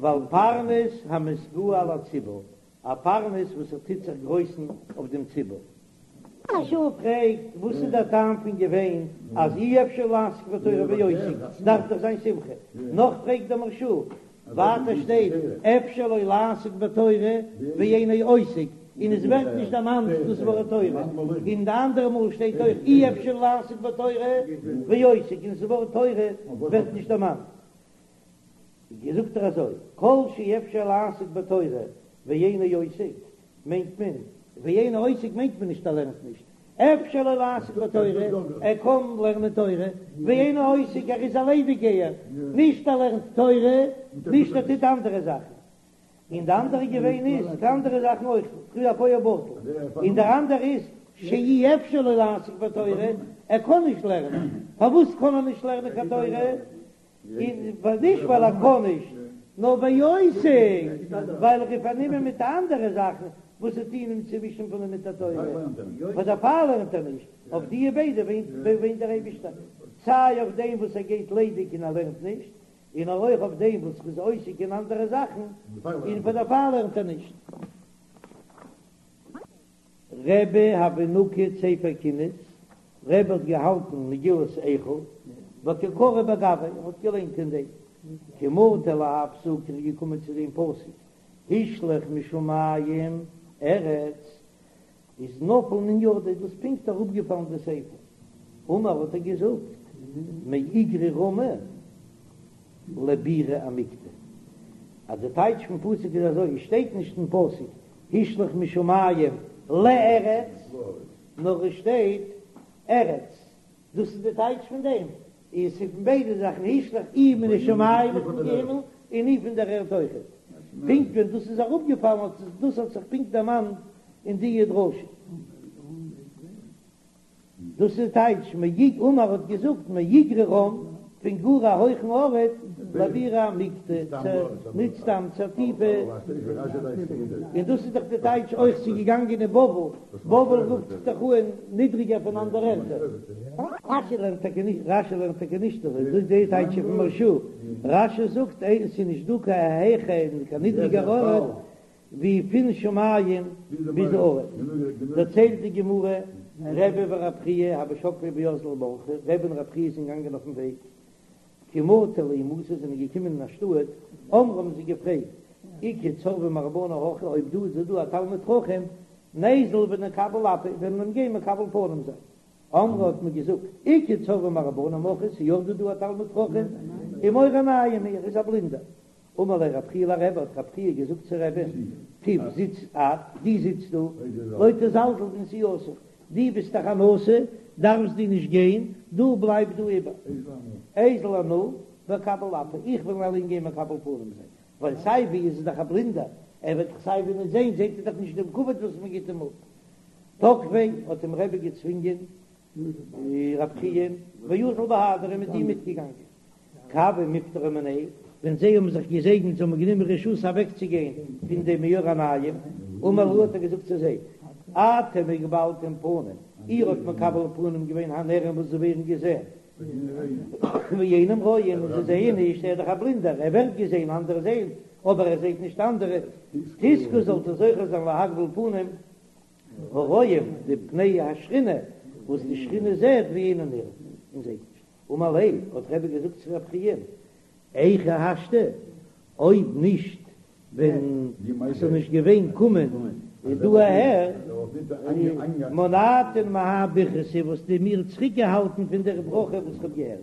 ועל פרנס המתגאה על הציבור, א פרנס וואס ער טוט זיך גרויסן אויף דעם ציבור. מהרש"א פרעגט וואס איז דער טעם פון געוויין אז אי אפשר לעסוק בתורה ועוסק, דארף דאך זיין שמחה. נאך פרעגט דער מהרש"א, ווייטער שטייט אפשר לו לעסוק בתורה ואינו עוסק, און עס ווערט נישט דערמאנט דאס ווארט תורה, און די אנדערע מאל שטייט אויך אי אפשר לעסוק בתורה ועוסק, און דאס ווארט תורה ווערט נישט דערמאנט. זאגט ער אזוי, כל שאפשר לעסוק בתורה ואינו עוסק, מיינט מען, ואינו עוסק מיינט מען נישט ער לערנט נישט, אפשר לו לעסוק בתורה, ער קען לערנען תורה, ואינו עוסק ער איז א ליידיגגייער, נישט ער לערנט תורה, נישט ער טוט אנדערע זאכן. און די אנדערע געוויין איז די אנדערע זאכן אויך, פריער א פועל בטל, און דער אנדערע איז שאי אפשר לו לעסוק בתורה, ער קען נישט לערנען, פארוואס קען ער נישט לערנען קיין תורה? און נישט ווייל ער קען נישט, נאר ועוסק, ווייל ער איז פארנומען מיט אנדערע זאכן וואס טוען אים צעווישן פון לימוד התורה, פאר דערפאר לערנט ער נישט, אויף די ביידע וויינט דער אייבישטער, סיי אויף דעם וואס ער גייט ליידיג און ער לערנט נישט, און אויך אויף דעם וואס ער איז עוסק אין אנדערע זאכן און פאר דערפאר לערנט ער נישט. רבי הוה נקיט ספר קינות, רבי האט געהאלטן מגילת איכה, וקא קרי בגויה, ער האט געליינט אין דעם, כי מטא להאי פסוקא, ער איז געקומען צו דעם פסוק, השליך משמים ארץ, איז נפל מן ידיה, איז דאס פונקט אראפגעפאלן די ספר, אמר האט ער געזאגט, מאיגרא רמא לבירא עמיקתא, אז די טייטש פון פסוק איז אזוי, עס שטייט נישט אין פסוק השליך משמים לארץ, נאר עס שטייט ארץ, דאס איז די טייטש פון דעם, איז ס'איז פון ביידע זאכן, השליך אי מן השמים פון די הימל און אי פון דער ערד אויכעט. פונקט ווען דאס איז אראפגעפאלן האט דאס האט זיך פונקט דערמאנט אין די דרשה. דאס איז טייטש מאיג אמר האט געזאגט מאיגרא רם פון גאר א הויכן ארט לבירא עמיקתא צו ניט סתם צו א טיפע און דאס איז דאך די טייטש אויך ס'איז געגאנגען אין בבל בבל רופט זיך דאך אן נידריגער פון אנדערע ערטער. רשי לערנט טאקע נישט רשי לערנט טאקע נישט אזוי דאס איז די טייטש פון מהרש"א רשי זאגט עס איז נישט דא קיין העכער און קיין נידריגער ארט ווי פון שמים ביז ארץ, דערציילט די גמרא, רבי ורב חייא הוו שקלי ואזלי באורחא, רבי און רב חייא זענען געגאנגען אויפן וועג, כי מטו לההיא מתא זענען געקומען אין א שטאט, אמרי האבן זיי געפרעגט, איכא צורבא מרבנן הכא, אויב דא איז דא א תלמיד חכם, ניזיל ונקביל אפיה, וועלן מיר אים גיין מקבל פנים זיין. אמרי האט מען געזאגט, איכא צורבא מרבנן הכא, ס'איז יא דא דא א תלמיד חכם, ומאור עינים הוא, ער איז א בלינדער. אמר ליה רב חייא לרבי, האט רב חייא געזאגט צו רבי'ן, תיב זיץ את, דו זיץ דא, לא תזלזל בנסיעתך, דו ביסט דאך א נשיא, דארפסט דו נישט גיין, דו בלייב דא איבער. איזיל אנא ואקביל אפי, איך וועל אליין גיין מקבל פנים זיין, ווייל סיי ווי איז ער דאך א בלינדער, ער וועט דאך סיי ווי נישט זען, זעט ער דאך נישט דעם כבוד וואס מען גיט אים אפ. תקפיה האט אים רבי געצווינגען רב חייא ואזל בהדיה איז מיט אים מיטגעגאנגען. כי הוו מיפטרי מיניה, ווען זיי האבן זיך געזעגנט זיי האבן גענומען רשות אוועקצוגיין פון דעם מאור עינים, אמר להו האט ער געזאגט צו זיי, אתם הקבלתם פנים, איר האט מקבל פנים געווען הנראים וואס זיי ווערן געזען, ואינם רואים, און זיי זעען נישט, ער איז דאך א בלינדער, ער ווערט געזען, אנדערע זעען, אבער ער זעט נישט אנדערע, תזכו זאלט איר זוכה זיין להקביל פנים הרואים, די פני השכינה, וואס די שכינה זעט ואינם נראים, און זעט נישט. אמר ליה, האט רבי געזאגט צו רב חייא, היכי השתא, אויב נישט ווען ס'זאל נישט געווען קומען דא אהער, מנעתן מהאי ברכתא וואלסטו מיר צוריק געהאלטן פון דער ברכה וואס כ'האב געהערט.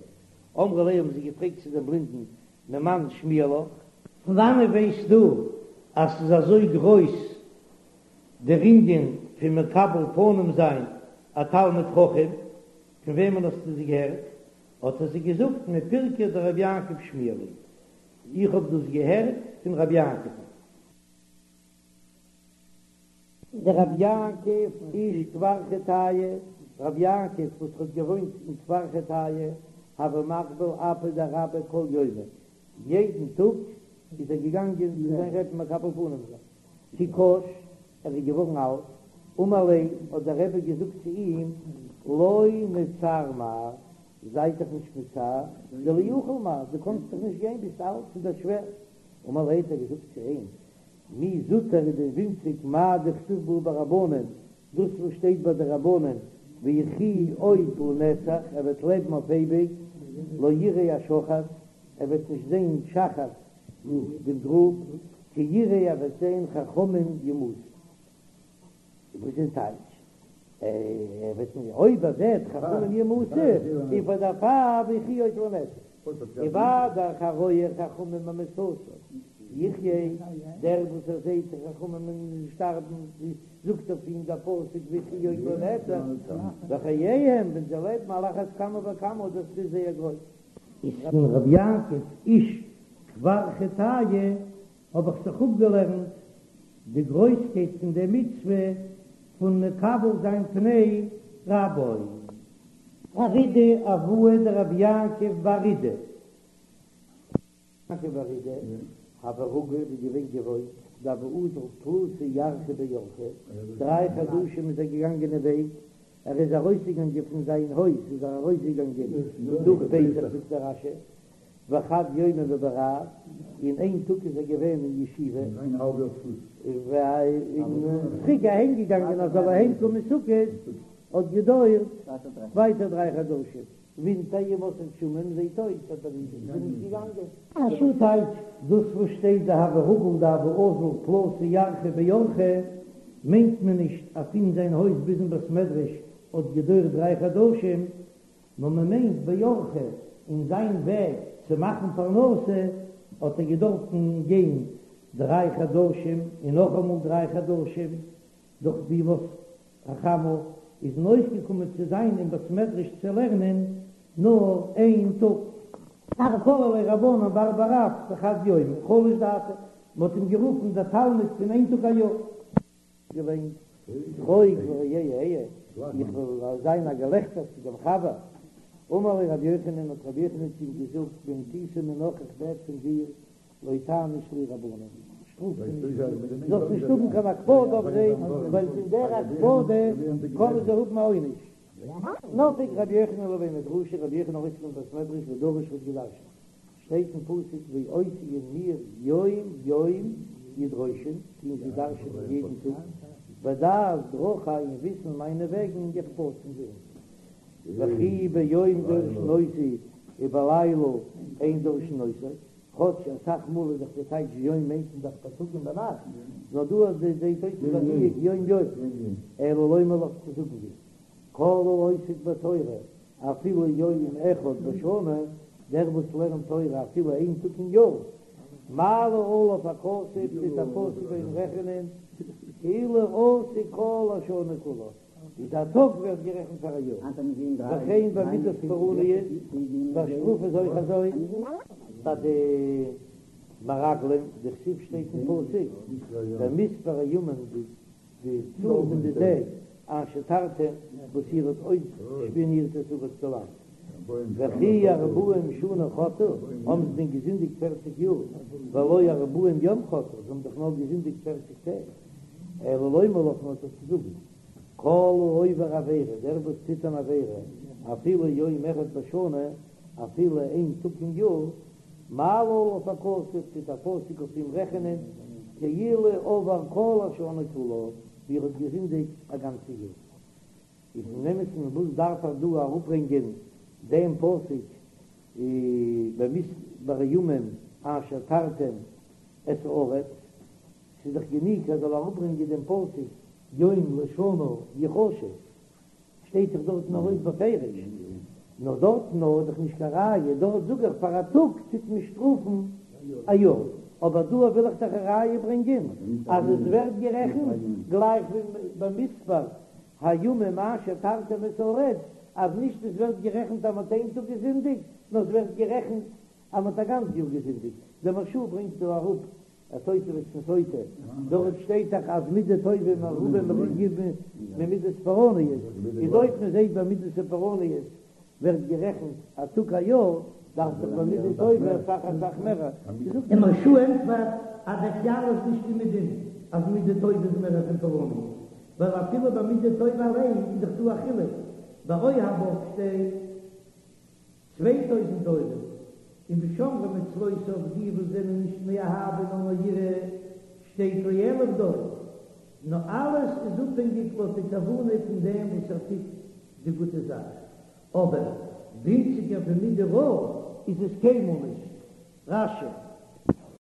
אמרו ליה האבן זיי געפרעגט צו דעם בלינדן, ממאן שמיע לך? פון וואנעט ווייסטו אז ס'איז אזוי גרויס דער ענין פון מקבל פנים זיין א תלמיד חכם? פון וועמען האסטו עס געהערט? האט ער זיי געזאגט, מפירקא דרבי יעקב שמיע לי, איך האב דאס געהערט פון רבי יעקב'ן. דרבי יעקב איש כפר חטאי, רבי יעקב וואס האט געוואוינט אין כפר חטאי, הוה מקביל אפיה דרביה כל יומא, יעדן טאג איז ער געגאנגען צו זיין רבי'ן מקבל פנים זיין. כי קש, ער איז געווארן אלט, אמר ליה, האט דער רבי געזאגט צו אים, לא מצער מר, זיי דיך נישט מצער, דלא יכיל מר, דו קאנסט דאך נישט גיין, ביסט אלט, ס'איז דיר שווער. אמר ליה, האט ער געזאגט צו אים, מי זוטר איז דען ווינציג מאי דכתיב בהו ברבנן, דאס וואס שטייט ביי די רבנן, ויחי עוד לנצח, ער וועט לעבן אויף אייביג, לא יראה השחת, ער וועט נישט זען שחת, דעם גרוב, כי יראה ער וועט זען חכמים ימותו. וואס איז טייטש? ער וועט נישט, אויב ער זעט חכמים ימותו, איז פאר דערפאר ויחי עוד לנצח. ומה דאך הרואה חכמים במיתתם יחיה, דער וואס ער זעט די חכמים שטארבן, זאגט אויף אים דער פסוק ויחי עוד לנצח, בחייהם ווען זיי לעבן על אחת כמה וכמה, דאס איז זייער גרויס. איז פון רבי יעקב איש כפר חטאי האב איך זיך אפגעלערנט די גרויסקייט פון די מצוה פון מקבל זיין פני רבו. רב אידי אבוה דרבי יעקב בר אידי. יעקב בר אידי הוה רגיל איז געווען געוואוינט דהוה אזיל תלתא ירחי באורחא, דריי חדשים איז ער געגאנגען אין וועג, ער איז ארויסגעגאנגען פון זיין הויז איז ער ארויסגעגאנגען נאך פסח זאגט דער רש"י וחד יומא בבי רב, און איין טאג איז ער געווען אין ישיבה, און צוריק אהיים געגאנגען אז זאל אהיים קומען סוכות האט געדויערט ווייטער דריי חדשים. ווינטער ימות הגשמים זעהט אויס אז ער איז נישט געגאנגען. א שעה טייטש, דאס וואס שטייט דהוה רגיל דהוה אזיל תלתא ירחי באורחא מיינט מען נישט אז פון זיין הויז ביזן בית מדרש האט געדויערט דריי חדשים, נאר מען מיינט באורחא אין זיין וועג צו מאכן פרנסה האט ער געדארפן גיין דריי חדשים און נאכאמאל דריי חדשים דורך בימות החמה איז אים אויסגעקומען צו זיין אין בית מדרש צו לערנען נאר איין טאג. קרו ליה רבנן בר בר רב דחד יומא חלש דעתיה, מען האט אים גערופן דער תלמיד פון איין טאג א יאר. געליינט שחוק לרעי אהיה, איך וועל זיין א געלעכטער צו דעם חבר. אמר ליה רבי יוחנן, האט רבי יוחנן צו אים געזאגט, במטותא מינך איך בעט פון דיר, לא תעניש להו רבנן, שטראף זיי נישט, זאלסט נישט האבן קיין הקפדה אויף זיי, ווייל פון דער הקפדה קענען זיי האבן א עונש. נפק רבי יוחנן לבי מדרשא, רבי יוחנן ארויס פון בית מדרש ודרש האט געדרשנט, שטייט אין פסוק ואותי און מיר יום יום ידרשון, טוען זיי דרש'נען יעדן טאג, ודעת דרכי און וויסן מיינע וועגן יחפצון זיי וכי ביום דורשין אותו ובלילה אין דורשין אותו, כאטש אסאך מאל איז דאך די טייטש יום מיינט מען דאך בייטאג און ביינאכט, נאר דא אז די זעהט אויס איז א דיוק יום יום, אלא לומר לך צו זאגן דיר, כל העוסק בתורה אפילו יום אחד בשנה, דער וואס לערנט תורה אפילו איין טאג אין יאר, מעלה עליו הכתוב טוט דער פסוק ביי אים רעכענען כאילו עסק כל השנה כולה. איז א טאג ווערט גערעכנט פאר א יאר, וכן במידת פורעניות, ביי שטראף איז אויך אזוי. ביי די מרגלים, דכתיב שטייט אין פסוק, במספר הימים די צאל פון די טעג אשר תרתם וואס איר האט אויסשפיאנירט את הארץ די לאנד. וכי ארבעים שנה חטאו, האבן זיי דען געזינדיגט פערציג יאר, והלא ארבעים יום חטאו, זיי האבן דאך נאר געזינדיגט פערציג טעג. אלא לומר לך נאר צו זאגן, כל העובר עבירה, דער וואס טוט אן עבירה, אפילו יום אחד בשנה, אפילו איין טאג אין יאר, מעלה עליו הכתוב, טוט דער פסוק אויף אים רעכענען, כאילו עבר כל השנה כולה, ווי ער האט געזינדיגט א גאנצע יאר. איז אין אמת'ן וואס דארף ער דא אראפברענגען דעם פסוק במספר הימים אשר תרתם את הארץ? ס'איז דאך גענוג ער זאל אראפברענגען דעם פסוק יום לשנה יחשב, שטייט דאך דארטן ארויס בפירוש, נאר דארטן איז דאך נישט קיין ראיה, דארט זאג איך פאר א טאג טוט מען שטראפן א יאר, אבער דא וויל איך דאך א ראיה ברענגען אז עס ווערט גערעכנט גלייך ווי במספר הימים אשר תרתם את הארץ, אז נישט עס ווערט גערעכנט אז מען האט איין טאג געזינדיגט, נאר עס ווערט גערעכנט אז מען האט א גאנץ יאר געזינדיגט. דער מהרש"א ברענגט דא אראפ א תוספות פון סוטה, דארט שטייט דאך אז מידה טובה מרובה ממידת פורעניות, איז אויב מען זעט ביי מידת פורעניות ווערט גערעכנט א טאג א יאר, דארף דאך ביי מידה טובה אסאך אסאך מער. דער מהרש"א ענטפערט אז דער כלל איז נישט אומעדום אז מידה טובה איז מער פון פורעניות, ווייל אפילו ביי מידה טובה אליין איז דאך דא א חילוק, ביי אוהביו שטייט 2000 דורות, און בשומרי מצוותיו די וואס זענען נישט מאהבה נאר מיראה שטייט לאלף דור, נאר אלעס איז אפהענגיק לויט די כוונה פון דעם וואס ער טוט די גוטע זאך, אבער ווינציגער פון מידה רעה איז עס קיינמאל נישט. רש"י.